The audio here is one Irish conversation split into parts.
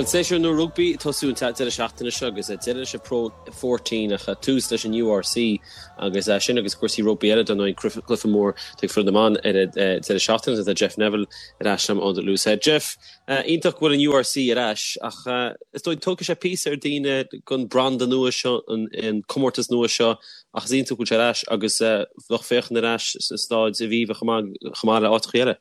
Bhuel, séasúr nua rugbaí ag tosú an deireadh seachtaine seo agus deireadh leis an Pro 14 ach tús leis an URC agus sin agus cúrsaí rugbaí eile dar ndóigh, cluiche mór ag foireann na mban ar an deireadh seachtaine. Tá Jeff Neville ar ais liom ó The Loosehead. Jeff, iontach go bhfuil an URC ar ais ach is dóigh tógfaidh sé píosa ar daoine don branda nua seo, an comórtas nua seo ach is iontach go bhfuil sé ar ais agus lucht féachana ar ais sa staid Aviva chomh maith le áiteacha eile.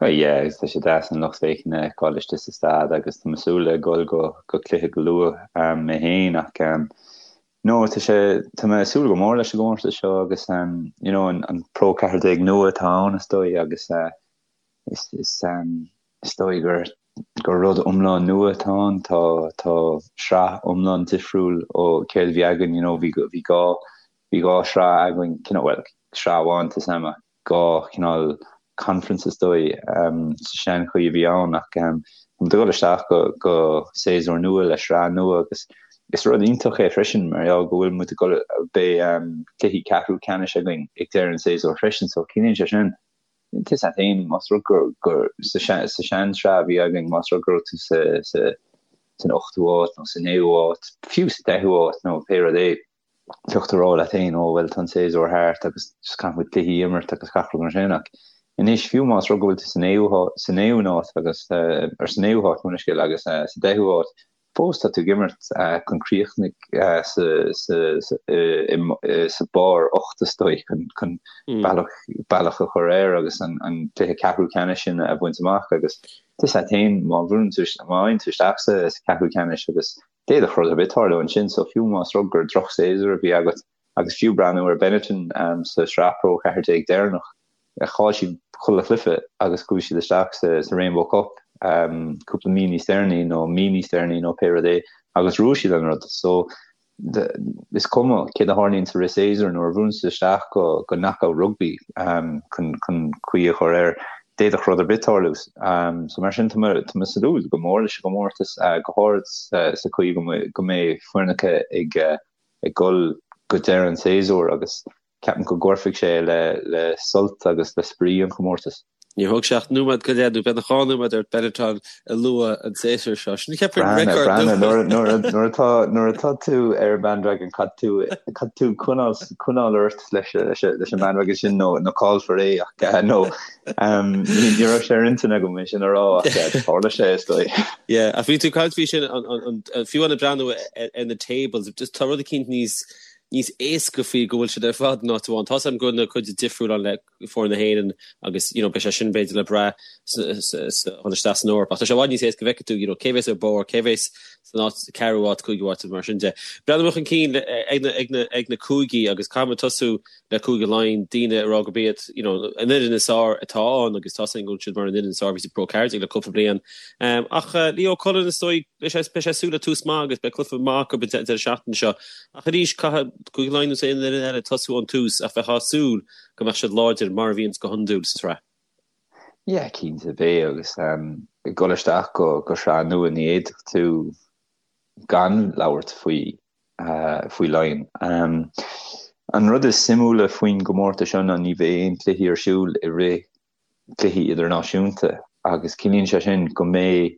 Oh yeah, agus tá sé deas an lucht féachana a fheiceáil istigh sa staid agus tá mé ag súil le dhul go go cluiche go luath mé féin ach no tá sé tá mé ag súil go mór leis an gcomórtas seo agus you know an an Pro 14 nua atá ann is dóigh agus is is is dóigh gur gur rud iomlán nua atá ann tá tá sraith iomlán difriúil ó céard a bhí againn you know bhí bhí dhá bhí dhá shraith againn cineál bhuel sraith amháin tá sam 2 chineál conference is dóigh sa seanchaoi a bhí ann ach tá muid ag dul isteach go go séasúr nua le sraith nua agus is rud iontach é freisin mar gheall go bhfuil muid ag dul beidh cluichí ceathrú ceannais againn ag deireadh an séasúir freisin so ciallaíonn sé sin tá a fhios agat féin más rud gur gur sa sa seansraith a bhí againn más rud go raibh tú sa sa san ochtú háit nó sa naoú háit fiú sa deichiú háit nó pé rud é bheadh tú ag rá leat féin, ó bhuel tá an séasúr thart agus just caithfidh muid cluichí a imirt agus gach rud mar sin ach anois fiú más rud go bhfuil tú sa naoú sa naoú háit agus or sa naoú háit mo leithscéal agus sa deichiú háit fós tá tú ag imirt chun críochnaigh sa sa sa sa barr 8 is dóigh chun chun bealach bealach a chur air agus an an cluiche ceathrú ceannais sin a bhaint amach agus tá a fhios agat féin má bhuann tú má fhaigheann tú isteach sa sa ceathrú ceannais agus D'fhéadfadh rud ar bith tarlú ansin, so fiú más rud gur drochshéasúr a bhí agat, agus fiú breathnú ar Benetton sa Sraith Pro 14 deireanach, chaill siad chuile chluiche agus chuaigh siad isteach sa Rainbow Cup cúpla mí níos deireanaí nó mí níos deireanaí nó pé rud é agus bhuaigh siad an rud. So is cuma céard a tharlaíonn sa rith séasúir nuair a bhuann siad isteach go go knockout rugby chun chun caoi a chur air. D'fhéadfadh rud ar bith tarlú. So mar sin tá mé ag súil go mór leis an gcomórtas, go háirid sa chaoi go mbeidh foirneacha ag ag dul go deireadh an tséasúir agus ceapaim go gcuirfidh sé le le sult agus le spraoi an chomórtais. Níor thóg sé ach nóiméad go leith nó beagnach 2 nóiméad ort Benetton a lua an séasúr seo. Sin ceapaim record nua. Nuair atá nuair atá tú ar an bandwagon caithfidh tú caithfidh tú coinneáil coinneáil ort leis leis an bandwagon sin nó nó caillfear é ach nó ní raibh sé ar intinn agam é sin a rá ach tharla sé is dóigh. Yeah, ach bhí tú ag caint faoi sin an fiú ag breathnú ar na tables, just tá rud eicínt níos níos éasca faoi go bhfuil siad ar fad in áit amháin. Tá a fhios agam go bhfuil na cuid difriúil ann le foireann na hÉireann agus you know beidh sé sin b'fhéidir le brath chun isteach san Eoraip ach tá sé i bhfad níos éasca go bhfeicfidh tú you know cé bheas ar barr, cé bheas san áit ceathrú áit, cúigiú áit mar sin de. Breathnú chun cinn ag na ag na ag na cúigí agus caithfidh muid tosú le Cúige Laighean, daoine ag rá gurb iad you know an fhoireann is fearr atá ann agus tá a fhios againn go bhfuil siad mar an fhoireann is fearr a bhí sa Pro 14 le cúpla bliain. Ach Leo Cullen is dóigh beidh sé beidh sé ag súil le tús maith agus beidh cluiche maith acu an deireadh seachtaine seo. Ach arís caithfidh Cúige Laighean nó aon fhoireann eile tosú ón tús ach bheifeá ag súil go mbeadh siad láidir mar a bhíonns go hiondúil sa tsraith. Yeah, cinnte beidh agus ag dul isteach go go sraith nua ní fhéadfadh tú gan labhairt faoi faoi Laighin. An rud is suimiúla faoin gcomórtas seo ná ní bheidh aon cluichí ar siúl i rith cluichí idirnáisiúnta agus ciallaíonn sé sin go mbeidh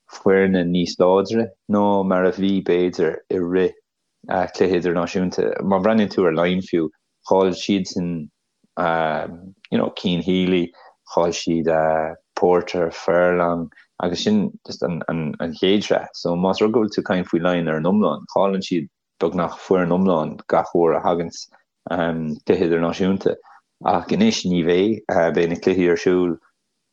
foirne níos láidre ná mar a bhí b'fhéidir i rith cluiche idirnáisiúnta. Má bhreathnaíonn tú ar Laighin fiú, chaill siadsan you know Cian Healy, chaill siad Porter, Furlong agus sin just an an an chéad sraith. So más rud go bhfuil tú ag caint faoi Laighin ar an iomlán, chailleann siad beagnach foireann iomlán gach uair a thaganns cluiche idirnáisiúnta. Ach anois ní bheidh, beidh na cluichí ar siúl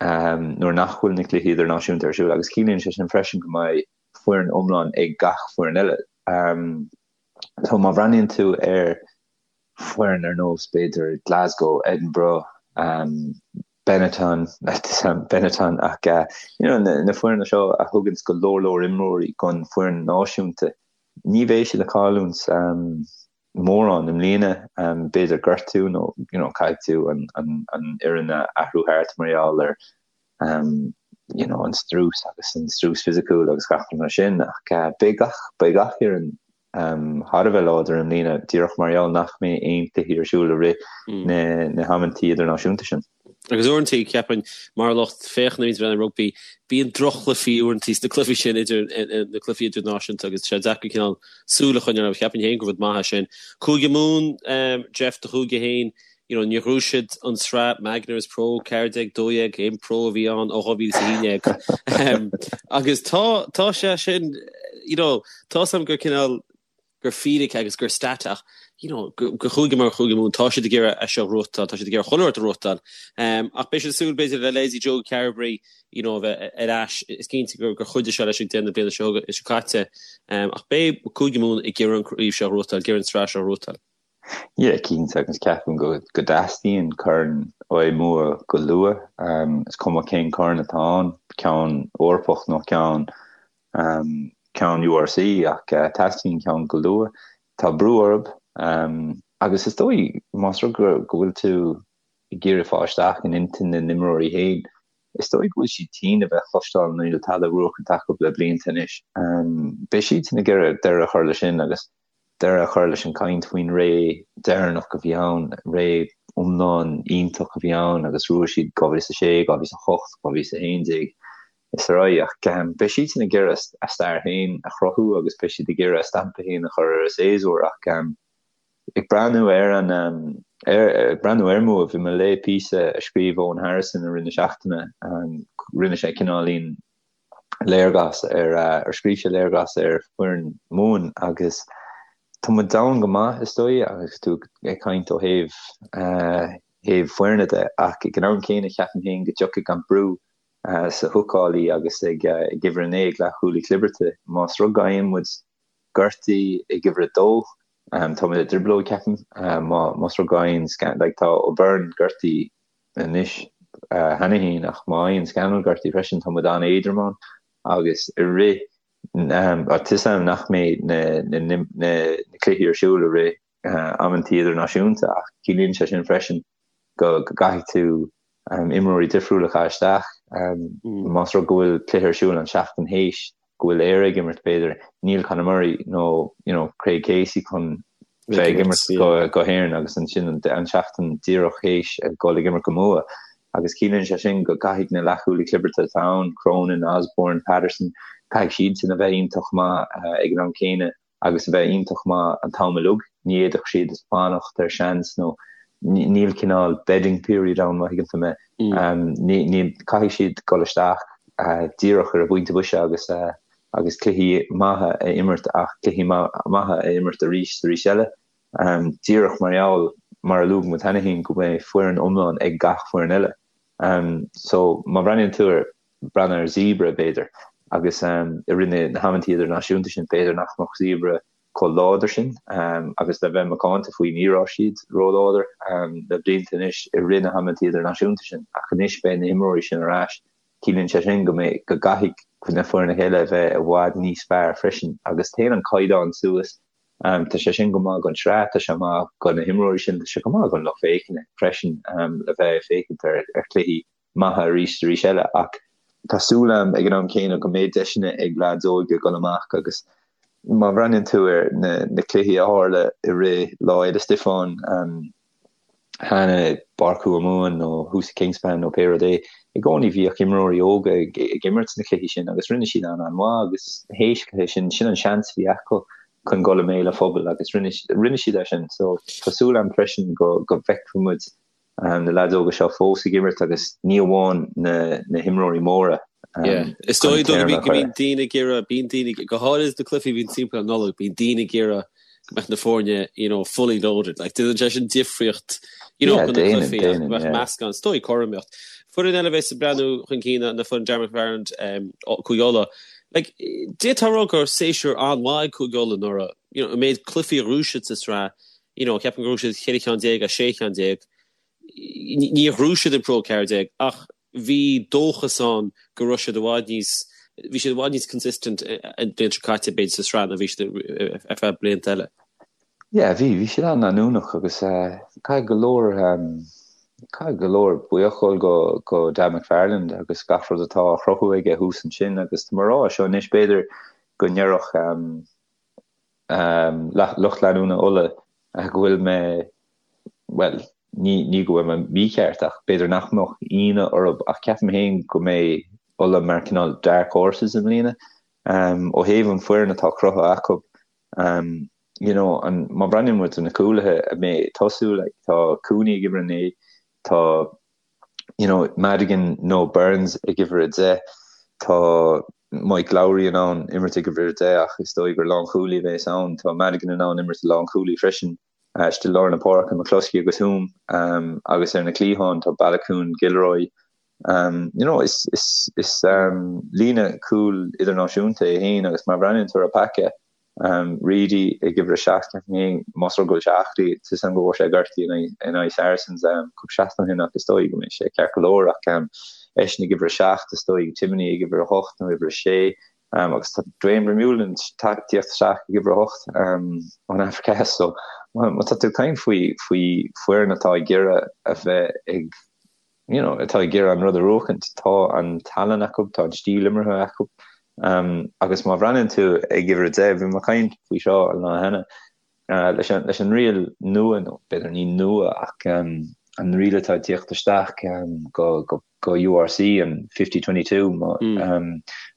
nuair nach bhfuil na cluichí idirnáisiúnta ar siúl agus ciallaíonn sé sin freisin go mbeidh foireann iomlán ag gach foireann eile. So má bhreathnaíonn tú ar foireann ar nós b'fhéidir Glasgow, Edinburgh, Benetton, Benetton ach you know na foirne seo a thuganns go leor leor imreoirí don foireann náisiúnta, ní bheidh siad ag cailliúint mórán i mbliana, b'fhéidir gortú nó you know caithfidh tú an an an fhoireann a athrú thart mar gheall ar you know an strus agus an strus fisiciúil agus gach rud mar sin ach beidh gach beidh gach fhoireann thar a bheith láidir i mbliana díreach mar gheall nach mbeidh aon cluichí ar siúl i rith na na hamantaí idirnáisiúnta sin. Agus uaireanta, ceapaim, mar lucht féachana a bhíonns ag breathnú ar rugbaí, bíonn droch-chluichí uaireanta sna cluichí sin idir na cluichí idirnáisiúnta agus tá sé deacair cineál súil a choinneáil orthu. Cheapfainn féin gur rud maith é sin. Cúige Mumhan, Jeff, do chúige féin, you know, níor ghnóthaigh siad an tsraith Magners Pro 14, 12, aon Pro a bhí ann ó 2011. Agus tá, tá sé sin, you know, tá 's agam gur cineál, gur fíric agus gur stat ach you know do chúige mar Chúige Mumhan tá siad ag iarraidh é seo a ghnóthachtáil, tá siad ag iarraidh chuile rud a ghnóthachtáil. Ach beidh siad ag súil b'fhéidir le leithéidí Joe Carbery you know a bheith ar ais. Is cinnte gur chuidigh sé leis ag deireadh na bliana seo seo caite. Ach beidh Cúige Mumhan ag iarraidh an chraobh seo a ghnóthachtáil, ag iarraidh an tsraith seo a ghnóthachtáil. Yeah, cinnte, agus ceapaim go go dteastaíonn corn ó Mumha go luath. Is cuma cén corn atá ann, ceann Eorpach nó ceann ceann URC ach teastaíonn ceann go luath. Tá brú orthu agus is dóigh más rud go bhfuil tú ag iarraidh fáil isteach in intinn na n-imreoirí féin, is dóigh go bhfuil siad tinn a bheith ag cloisteáil níl tada buachan acu le blianta anois. Beidh siadsan ag iarraidh deireadh a chur leis sin agus deireadh a chur leis an gcaint faoin ré deireanach a bhí ann, ré iomlán iontach a bhí ann agus bhuaigh siad 2006, 2008, 2011 is ar aghaidh. Ach beidh siadsan ag iarraidh a stair féin a chruthú agus beidh siad ag iarraidh a stampa féin a chur ar an séasúr ach ag breathnú ar an ag breathnú ar Mumha, bhí mé ag léamh píosa a scríobh Eoghan Harrison i rith na seachtaine, rinne sé cineáilín léargas ar ar scríobh sé léargas ar foireann Mumhan agus tá muid domhain go maith is dóigh agus tú ag caint ó thaobh thaobh foirne de ach ag an am céanna ceapaim féin go dtiocfaidh an brú sa húcálaí agus ag uimhir a 9 ag leathchúlaí clibirte. Más rud go bhfaigheann muid gortaithe ag uimhir a dó, tá muid i dtrioblóid ceapaim. Más rud go bhfaigheann like tá O'Byrne gortaithe anois cheana féin ach má fhaigheann Scannell gortaithe freisin tá muid an-éadrom ann agus i rith tá 'fhios a'm nach mbeidh na cluichí ar siúl i rith amantaí idirnáisiúnta ach ciallaíonn sé sin freisin go gcaithfidh tú imreoirí difriúla a chaitheamh isteach. Más rud go bhfuil cluiche ar siúl an seachtain théis go bhfuil Éire ag imirt b'fhéidir, níl Conor Murray nó you know Craig Casey chun bheith ag imirt go hÉirinn agus ansin an seachtain díreach théis ag dul ag imirt go Mumha. Agus ciallaíonn sé sin go gcaithfidh na leathchúlaí clibirte atá ann, Cronin, Osborne, Patterson, caithfidh siadsan a bheith iontach maith ag an am céanna. agus a bheith iontach maith an t-am uilig. Ní fhéadfadh siad fanacht ar seans nó níl cineál bedding period ann má thuigeann tú mé. Ní, caithfidh siad dul isteach díreach ar an bpointe boise agus agus cluichí maithe a imirt ach cluichí maithe a imirt arís is arís eile. Díreach mar gheall, mar a luaigh muid cheana féin, go mbeidh foireann iomlán ag gach foireann eile. So má bhreathnaíonn tú ar breathnú ar Zebre, b'fhéidir, agus i rith na hamantaí idirnáisiúnta sin, b'fhéidir nach mbeadh Zebre chomh láidir sin agus le bheith macánta faoi ní raibh siad róláidir le blianta anois i rith na hamantaí idirnáisiúnta sin ach anois beidh na himreoirí sin ar ais. Ciallaíonn sé sin go mbeidh, go gcaithfidh na foirne eile a bheith i bhfad níos fearr freisin agus téann an caighdeán suas. Tá sé sin go maith don tsraith, tá sé maith do na himreoirí sin, tá sé go maith don lucht féachana freisin le bheith ag féachaint ar chluichí maithe arís is arís eile ach tá súil agam ag an am céanna go mbeidh deiseanna ag leaids óga dul amach agus má bhreathnaíonn tú ar na na cluichí a tharla i rith Lá Fhéile Stiofáin cheana i bPáirc Thuamhumhan nó thuas i Kingspan nó pé rud é, i gcónaí bhíodh imreoirí óga ag ag imirt sna cluichí sin agus rinne siad an-an-mhaith agus théis cluiche sin, sin an seans a bhí acu chun dul i mbéal an phobail agus rinne rinne siad é sin. So tá súil agam freisin go go bhfeicfidh muid na leaids óga seo fós ag imirt agus ní amháin na himreoirí móra. Is dóigh go mbíonn daoine ag iarraidh, bíonn daoine, go háirid na cluichí a bhíonn timpeall an Nollaig, bíonn daoine ag iarraidh go mbeadh na foirne, you know, fully loaded. Like, déanann sé sin difríocht, you know, chun na cluichí ach go mbeadh meascán, is dóigh cothromaíocht. Foireann eile a bheas ag breathnú chun cinn ná foireann Darren McFarland, Cúige Uladh. Like, d'fhéadfá a rá gur séasúr an-mhaith ag Cúige Uladh anuraidh, you know, an méid cluichí a ghnóthaigh siad sa tsraith, you know, ceapaim gur ghnóthaigh siad 14 cheann as 16 cheann. Níor ghnóthaigh siad an Pro 14 ach bhí dóchas ann go raibh siad i bhfad níos, bhí siad i bhfad níos consistent an bhliain seo caite b'fhéidir sa sraith ná bhí siad ar feadh blianta eile. Yeah, bhí, bhí siad an-leanúnach agus caithfidh go leor, caithfidh go leor buíochas dul go, go Dan McFarland agus gach rud atá á chruthú aige thuas ansin agus tá mé ag rá seo anois b'fhéidir go ndéarfadh lucht leanúna Uladh go bhfuil mé, bhuel, Ní ní go bhfuil mé mícheart ach b'fhéidir nach mbeadh ionadh orthu ach ceapaim féin go mbeidh Ulaidh mar cineál dark horses i mbliana. Ó thaobh an foireann atá cruthaithe acu, you know, an, má bhreathnaíonn muid ar na cúlaithe a mbeidh ag tosú, like, tá Cooney ag uimhir 9, tá, you know, Madigan nó Burns ag uimhir 10, tá Mike Lowry in ann imirt ag uimhir 10 ach is dóigh gur lánchúlaí a bheas ann, tá Madigan in ann imirt i lánchúlaí freisin. Istigh i lár na páirce, McCloskey agus Hume, agus ar na cliatháin tá Baloucoune, Gilroy. You know, is is is líne cúil idirnáisiúnta é féin agus má bhreathnaíonn tú ar an bpaca, Reidy ag uimhir a 7, ceapaim féin, más rud go bhfuil sé aclaí, tá 'fhios a'm go bhfuair sé gortú in aghaidh Saracens cúpla seachtain ó shin ach is dóigh go mbeidh sé ceart go leor ach eisean ag uimhir a 7, is dóigh Timoney ag uimhir a 8 nó uimhir a 6. Agus tá Duane Vermeulen ag tíocht isteach ag uimhir a hocht ón Afraic Theas so má tá tú ag caint faoi faoi foireann atá ag iarraidh a bheith ag you know atá ag iarraidh an rud a bhuachaint, tá an tallann acu, tá an stíl imeartha acu. Agus má bhreathnaíonn tú ag uimhir a 10, bhí mé ag caint faoi seo an lá cheana, leis an leis an riail nua nó b'fhéidir ní nua ach an riail atá ag tíocht isteach go go go URC an 50-22 má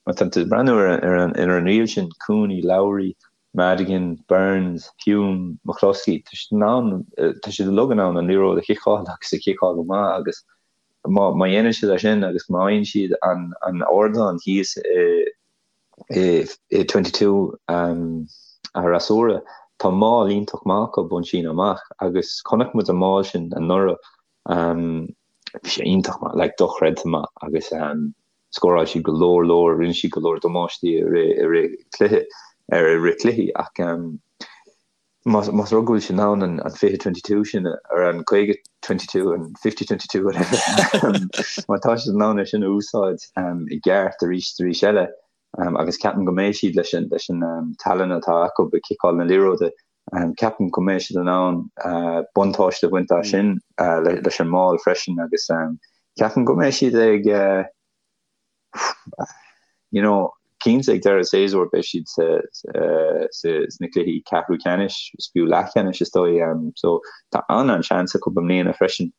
má tá tú ag breathnú ar ar an ar an riail sin Cooney, Lowry, Madigan, Burns, Hume, McCloskey tá siad in ann tá siad uilig in ann an liathróid a chiceáil agus a chiceáil go maith agus má má dhéanann siad é sin agus má fhaigheann siad an an ardán thíos i i i 22 an fhreasúra tá maul iontach maith acu ón síneadh amach agus chonaic muid an maul sin anuraidh Bhí sé iontach maith, like dochreidte maith agus scóráil siad go leor leor, rinne siad go leor damáistí i rith i rith cluiche ar i rith cluichí ach más más rud go bhfuil siad in ann an an 20 22 sin ar an 50 22 an 50 22 whatever má tá siad in ann é sin a úsáid i gceart arís arís eile agus ceapaim go mbeidh siad leis an leis an tallann atá acu ag ciceáil na liathróide Ceapaim go mbeidh siad in ann buntáiste a bhaint as sin leis an maul freisin agus ceapaim go mbeidh siad ag you know cinnte ag deireadh séasúir beidh siad sna cluichí ceathrú ceannais is fiú leathcheannais is dóigh so tá an-an-seans acu i mbliana freisin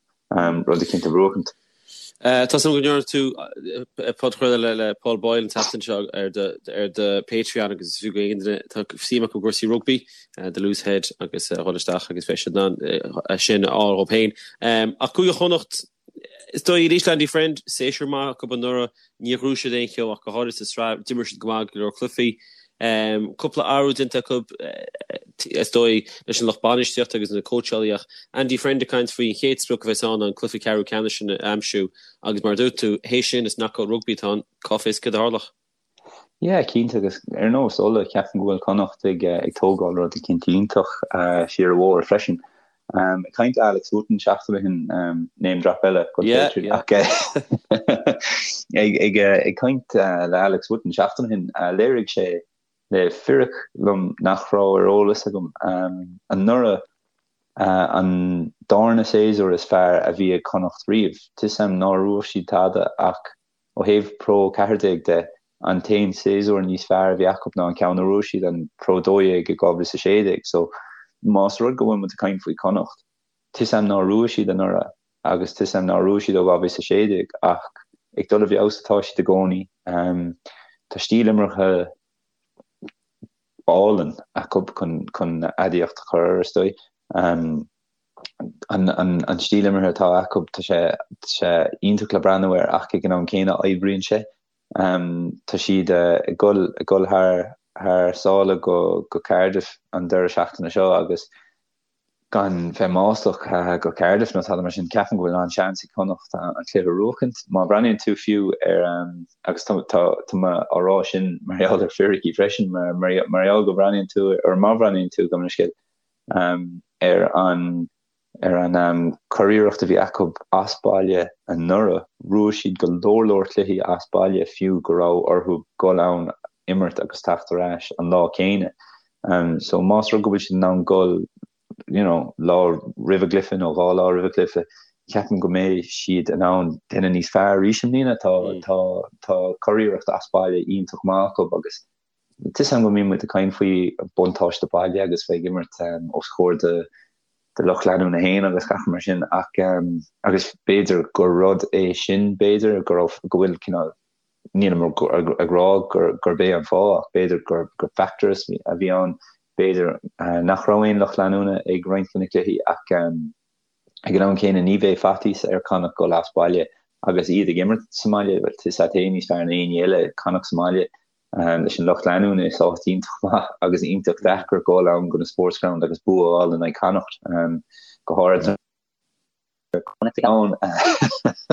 rud eicínt a bhuachaint. Tá 's agam go ndearna tú podchraoladh le Paul Boyle an tseachtain seo ar ar do Patreon agus is fiú go aon duine atá suim acu i gcúrsaí rugbaí, The Loose Head agus a dhul isteach agus beidh siad in ann sin a fháil dhóibh féin. Ach Cúige Chonnacht, is dóigh arís le Andy Friend, séasúr maith acu anuraidh, Níor ghnóthaigh siad aon cheo ach go háirithe sa tsraith. D'imir siad go maith go leor cluichí. Cúpla athrú déanta acu, is dóigh, leis an lucht bainistíochta agus na cóitseálaí ach Andy Friend ag caint faoi an chéad sprioc a bheas ann ná an cluiche ceathrú ceannais sin a aimsiú agus mar a dúirt tú, théis sin is knockout rugby atá ann, cá bhfios céard a tharlódh. Yeah, cinnte agus ar nós Uladh, ceapaim go bhfuil Connacht ag ag tógáil rud eicínt iontach siar an bóthar freisin. Ag caint le Alex Wootton seachtain ó shin, name drop eile go Yeah, yeah. ach ag ag ag caint le Alex Wootton seachtain ó shin, léirigh sé le fíric liom nach raibh ar eolas agam anuraidh an darna séasúr is fearr a bhí ag Connacht riamh. Tá 'fhios a'm nár bhuaigh siad tada ach Ó thaobh Pro 14 de, an t-aon séasúr níos fearr a bhí acu ná an ceann a bhuaigh siad, an Pro 12 i 2016. So, más rud go bhfuil muid ag caint faoi Chonnacht, tá 'fhios a'm nár bhuaigh siad anuraidh agus tá 'fhios a'm nár bhuaigh siad ó 2016 ach ag dul i bhfeabhas atá siad i gcónaí. Tá stíl imeartha álainn acu chun aidiacht a chur air, is dóigh. An stíl imeartha atá acu, tá sé sé iontach le breathnú air ach ag an am céanna oibríonn sé. Tá siad ag dul ag dul thar thar sáile go go Cardiff an deireadh seachtaine seo agus gan bheith maslach go Cardiff nó tada mar sin, ceapaim go bhfuil an-seans ag Connacht an cluiche a bhuachaint. Má bhreathnaíonn tú fiú ar agus tá tá tá mé á rá sin mar gheall ar fíricí freisin mar mar gheall go bhreathnaíonn tú ar má bhreathnaíonn tú gabh mo leithscéal ar an ar an curiarracht a bhí acu as baile anuraidh. Bhuaigh siad go leor leor cluichí as baile fiú go raibh orthu dul ann imirt agus teacht ar ais an lá céanna. So más rud go bhfuil siad in ann dul you know lá roimh a gcluiche nó dhá lá roimh a gcluiche, ceapaim go mbeidh siad in ann déanamh níos fearr arís i mbliana. Tá tá tá curiarracht as baile iontach maith acu agus Tá 'fhios a'm go mbíonn muid ag caint faoi buntáiste baile agus bheith ag imirt os comhair do de lucht leanúna féin agus gach mar sin ach agus b'fhéidir gur rud é sin b'fhéidir go raibh go bhfuil cineál nílim ag rá gurb é an fáth ach b'fhéidir gur gur factor a bhí ann b'fhéidir nach raibh aon lucht leanúna ag roinnt de na cluichí ach ag an am céanna ní bheidh faitíos ar Connacht dul as baile agus iad ag imirt sa mbaile bhuel tá a fhios agat féin níos fearr ná éinne eile Connacht sa mbaile leis an lucht leanúna is áit iontach maith agus iontach deacair dul ann go na Sportsground agus bua a fháil in aghaidh Connacht go háirithe Connacht ann.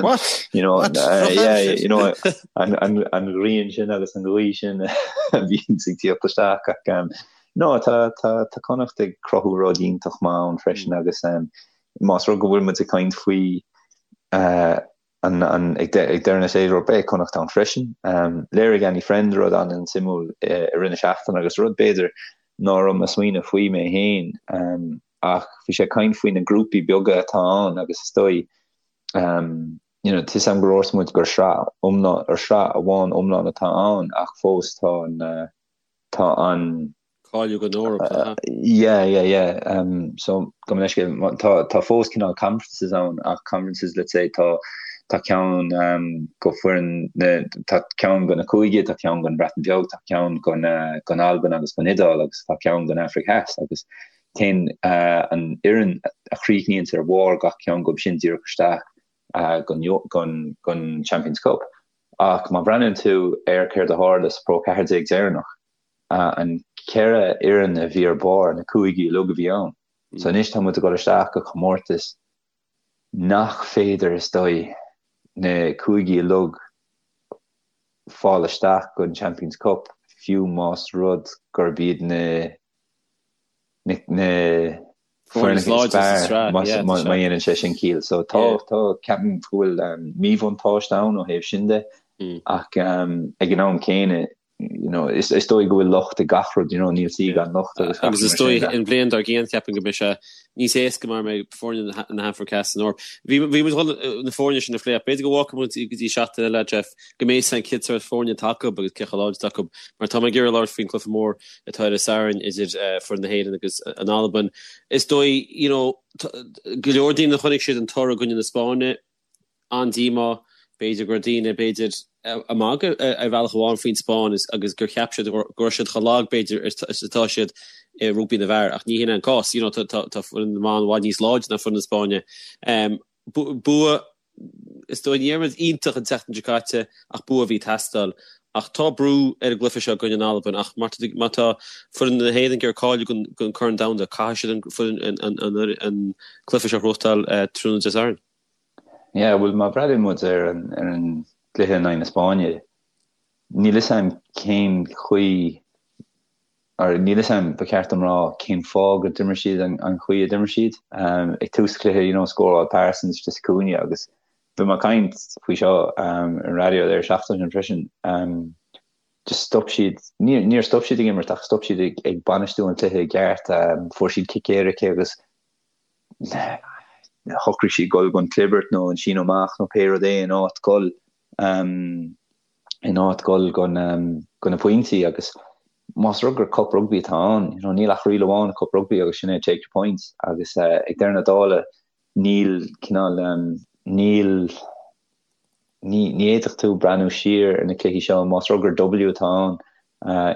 What? You know, What? uh, yeah, you know, an, an, an ghrian sin agus an ghaoth sin a bhíonn ag tíocht isteach ach um, no, tá, tá, tá Connacht ag cruthú rud iontach maith ann freisin agus um, más rud go bhfuil muid ag caint faoi uh, an, an, ag, de, ag deireadh na séasúr beidh Connacht ann freisin. Um, léirigh Andy Friend rud an-suimiúil i, i rith na seachtaine agus rud b'fhéidir ná raibh mé ag smaoineamh faoi mé féin um, ach bhí sé ag caint faoi na grúpaí beaga atá ann agus is dóigh um, you know, tá a fhios agam gur dhúirt muid gur sraith iomlán, or sraith amháin iomlán atá ann ach fós tá an, uh, tá an Cáiliú don Eoraip, uh, Yeah, yeah, yeah. Um, so gabh mo leithscéal, tá, tá fós cineál conferences ann ach conferences let's say tá tá ceann um, go foireann na, tá ceann go na cúige, tá ceann gon Bhreatain Bheag, tá ceann gon, uh, gon Albain agus gon Iodáil agus tá ceann gon Afraic Theas agus téann uh, an fhoireann a chríochnaíonns ar bharr gach ceann gob sin díreach isteach uh, gon, gon, gon Champions Cup. Ach má bhreathnaíonn tú ar céard a tharla sa Pro 14 deireanach, an cheithre fhoireann a bhí ar barr, na cúigí uilig a bhí ann. So anois tá muid ag dul isteach go comórtas nach féidir, is dóigh, na cúigí uilig fáil isteach don Champions Cup, fiú más rud gurb iad na na foirne is fearr má dhéanann sé sin ciall. So tá tá ceapaim go bhfuil míbhuntáiste ann ó thaobh sin de ach ag an am céanna you know, is, is dóigh go bhfuil locht ag gach rud, you know, níl saoi gan locht agus gach Agus is dóigh an bhliain dár gcionn ceapaim go mbeidh sé níos éasca mar mbeidh foirne na hAfraice Theas san Eoraip. Bhí bhí muid chun na foirne sin a phlé ach b'fhéidir go bhfágfaidh muid go dtí seachtain eile, Jeff, go mbeidh a fhios againn cén sórt foirne atá acu agus cé chomh láidir atá acu mar tá mé ag iarraidh labhairt faoin cluiche mór atá ar an Satharn idir foireann na hÉireann agus an Albain. Is dóigh, you know, go leor daoine a chonaic siad an toradh i gcoinne na Spáinne, an-díomá, b'fhéidir go raibh daoine, b'fhéidir, ag magadh ar bhealach amháin faoin Spáinn agus gur cheap siad go raibh siad chomh lag, b'fhéidir, is atá siad i rugbaí na bhfear ach ní hin é an cás. You know, tá foireann na mban i bhfad níos láidre ná foireann na Spáinne. Bua Is dóigh ní raibh muid iontach an tseachtain seo caite ach bua a bhí ag teastáil. Ach tá brú ar an gcluiche seo i gcoinne na Alban ach má tá foireann na hÉireann ag iarraidh cáiliú don Chorn Domhanda, caithfidh siad an cluiche seo a ghnóthachtáil tráthnóna Dé Sathairn. Yeah, bhuel má bhreathnaíonn muid ar an gcluiche in aghaidh na Spáinne, níl fhios a'm cén chaoi or níl fhios a'm, ba cheart dom rá, cén fáth go d'imir siad an chaoi a d'imir siad. Ag tús an chluiche, you know, scóráil Parsons istigh sa chúinne agus bhí mé ag caint faoi seo ar an raidió an seachtain sin freisin, just stop siad, níor stop siad ag imirt ach stop siad ag bainistiú an chluiche i gceart, fuair siad cic éirice agus shocraigh siad dul don chlibirt nó an síneadh amach nó pé rud é in áit dul. in áit dul go na pointí agus más rud gur cup rugbaí atá ann, you know, níl ach riail amháin i cup rugbaí agus sin é take your points agus ag deireadh na dála níl cineál níl ní ní fhéadfadh tú breathnú siar ar na cluichí seo más rud gur W atá ann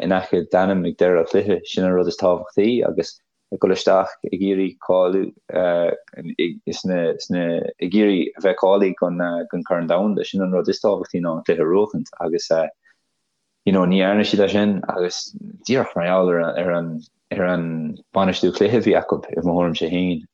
in aice d'ainm ag deireadh an chluiche, sin an rud is tábhachtaí agus ag dul isteach ag iarraidh cáiliú sna sna ag iarraidh a bheith cáilithe don don Chorn Domhanda sin an rud is tábhachtaí ná an cluiche a bhuachaint agus you know ní dhearna siad é sin agus díreach mar gheall ar ar an ar an bainistiú cluiche a bhí acu i mo thuairimse féin.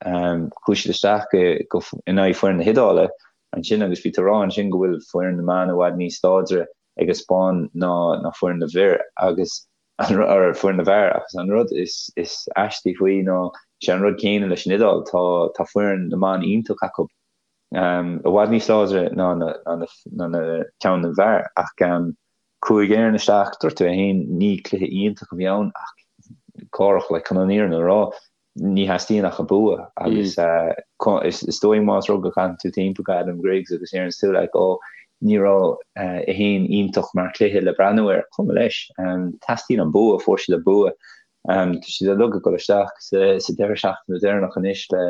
Chuaigh siad isteach go go in aghaidh foireann na hIodáile ansin agus bhí tú ag rá ansin go bhfuil foireann na mban i bhfad níos láidre ag an Spáinn ná ná foireann na bhfir agus or foireann na bhfear agus an rud is is aistí faoi ná sé an rud céanna leis an Iodáil, tá tá foireann na mban iontach acu, i bhfad níos láidre ná na ná na ná na ceann na bhfear ach chuaigh Éirinn isteach, dúirt tú é féin, ní cluiche iontach a bhí ann ach cárach like chun an fhírinne a rá ní theastaíonn ach an bua agus is dóigh más rud go gcaitheann tú timpeall go Adam Griggs agus deireann tú like oh ní raibh é féin iontach mar chluiche le breathnú air, cuma leis. Teastaíonn an bua, fuair siad an bua. Tá siad uilig ag dul isteach sa sa deireadh seachtaine deireanach anois le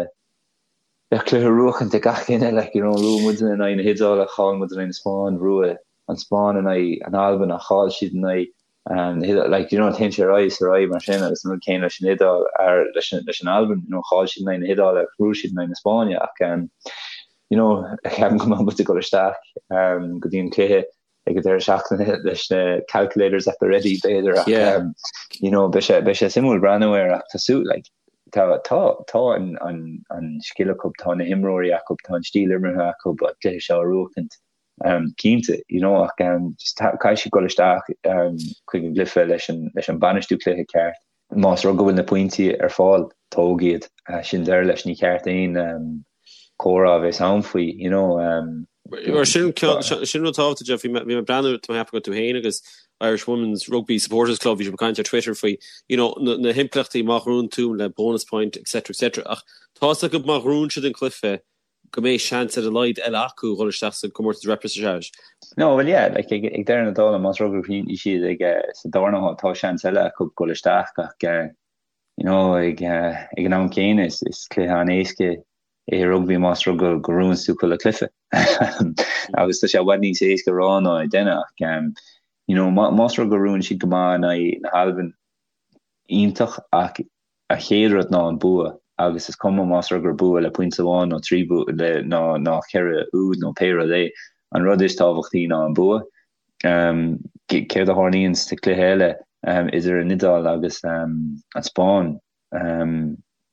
le cluiche a bhuachaint ag gach duine, like, you know, bhuaigh muidne in aghaidh na hIodáile, chaill muid in aghaidh na Spáinne, bhuaigh an Spáinn in aghaidh an Albain ach chaill siad in aghaidh na hIodáile, like, you know, téann sé ar aghaidh is ar aghaidh mar sin agus an rud céanna leis an Iodáil, ar, leis an, leis an Albain, you know, chaill siad in aghaidh na hIodáile agus bhuaigh siad in aghaidh na Spáinne ach, um, you know, ceapaim go mbeidh muid ag dul isteach um, go dtí an cluiche ag an deireadh seachtaine leis na calculators at the ready b'fhéidir ach Yeah. um, you know, beidh sé, beidh sé suimiúil breathnú air ach tá sú, like, tá, tá, tá an, an, an scil acu, tá na himreoirí acu, tá an stíl imeartha acu an cluiche seo a bhuachaint. Um, cinnte, you know, ach um, just caithfidh siad dul isteach um, chuig an gcluiche leis an, leis an bainistiú cluiche ceart. Más rud go bhfuil na pointí ar fáil, tóg iad. Uh, sin deireadh leis, ní ceart aon um, comhrá a bheith ann faoi, you know. Um, Mar sin sin rud tábhachtach Jeff, bhí mé bhí mé ag breathnú tá mé ag ceapadh go tú féin agus Irish Women's Rugby Supporters Club bhí sibh ag caint ar Twitter faoi you know, na, na himpleachtaí má ghnóthaíonn tú le bonus point etc etc ach tá's acu má ghnóthaíonn siad an cluiche go mbeidh seans ar a laghad eile acu dhul isteach sa gcomórtas repechage. No, well yeah, like ag, ag deireadh na dála más rud gur chríochnaigh siad ag eh, sa darna háit tá seans eile acu dhul isteach ach eh, you know, ag, eh, ag an am céanna is, is cluiche an-éasca é rugbaí más rud go, go ngnóthaíonn tú chuile cluiche. Agus tá sé i bhfad níos éasca a rá ná é a dhéanamh ach um, you know, má, más rud go ngnóthaíonn siad go maith in aghaidh na hAlban iontach ach An chéad rud ná an bua, agus is cuma más rud gur bua le pointe amháin nó 3 bua le ná ná 4 úd nó pé rud é, an rud is tábhachtaí ná an bua. Céard a tharlaíonn sa cluiche eile idir an Iodáil agus an Spáinn?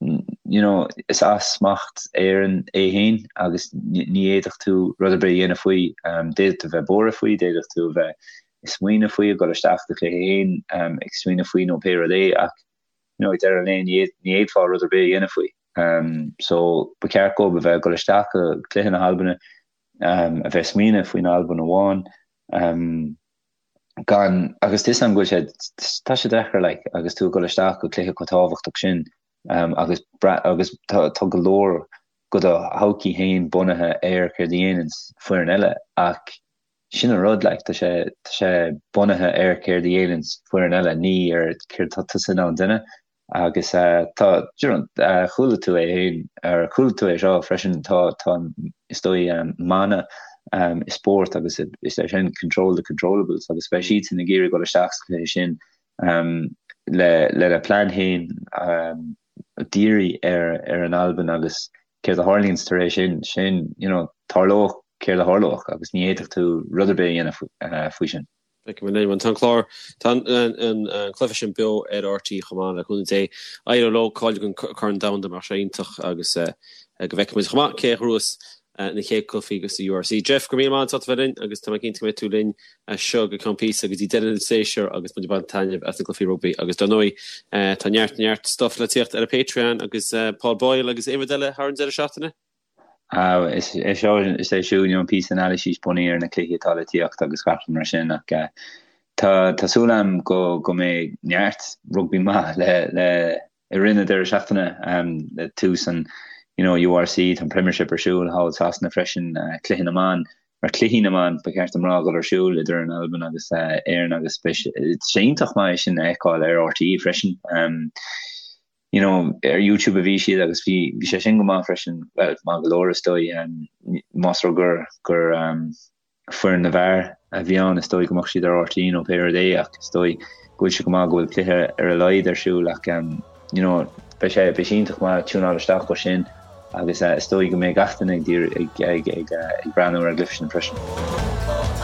You know, is as smacht Éireann é féin agus ní fhéadfadh tú rud ar bith a dhéanamh faoi. D'fhéadfadh tú a bheith buartha faoi, d'fhéadfadh tú a bheith ag smaoineamh faoi, ag dul isteach do chluiche féin ag smaoineamh faoi nó pé rud é ach you know, ag deireadh an lae ní fhéadfá rud ar bith a dhéanamh faoi. So ba cheart dóibh a bheith ag dul isteach go cluiche na hAlbana, a bheith ag smaoineamh faoin Albain amháin, gan, agus tá 'fhios a'm go bhfuil sé, tá sé deacair like agus tú ag dul isteach go cluiche chomh tábhachtach sin agus agus tá tá go leor de do thodhchaí féin bunaithe ar céard a dhéananns foireann eile ach Sin an rud, like, tá sé, tá sé bunaithe ar céard a dhéananns foireann eile, ní ar céard atá tusa in ann déanamh. Agus tá, do you know, chuala tú é féin, ar chuala tú é seo freisin, tá, tá, is dóigh, mana i spórt agus is é sin control the controllables agus beidh siadsan ag iarraidh dul isteach sa chluiche sin le, lena plean féin díriú ar, ar an Albain agus céard a tharlaíonns tar éis sin, sin, you know, tarlóidh céard a tharlóidh agus ní fhéadfadh tú rud ar bith a dhéanamh faoi sin. Feicfidh muid linn. Tá an clár, tá an cluiche sin beo ar RTÉ chomh maith le cúnamh Dé. Éireoidh leo cáiliú don Corn Domhanda mar sé iontach agus go bhfeicfidh muid chomh maith cé a ghnóthós na chéad cluichí sa URC. Jeff, go raibh míle maith agat as ucht a bheith linn agus tá mé cinnte go mbeidh tú linn as seo go ceann píosa go dtí deireadh an tséasúir agus muid ag baint taitneamh as na cluichí rugbaí agus dar ndóigh tá neart neart stuff le tíocht ar an Patreon agus Paul Boyle agus aon rud eile thar an deireadh seachtaine? Is é seo is é siúd an píosa anailíse bunaithe ar na cluichí atá le tíocht agus gach rud mar sin ach tá tá súil agam go go mbeidh neart rugbaí maith le le i rith na deireadh seachtaine le tús an you know URC, tá an Premiership ar siúl thall i Sasana freisin, cluiche na mban, or cluichí na mban ba cheart dom rá, dul ar siúl idir an Albain agus Éirinn agus beidh sé iontach maith é sin a fheiceáil ar RTÉ freisin. You know, ar YouTube a bhí siad agus bhí bhí sé sin go maith freisin, well, maith go leor is dóigh, más rud gur gur foireann na bhfear a bhí ann, is dóigh go mbeadh siad ar RTÉ nó pé rud é ach is dóigh go bhfuil sé go maith go bhfuil cluiche ar a laghad ar siúl ach you know beidh sé beidh sé iontach maith tiúnáil isteach dó sin agus is dóigh go mbeidh gach duine ag ag ag ag breathnú ar an gcluiche sin freisin.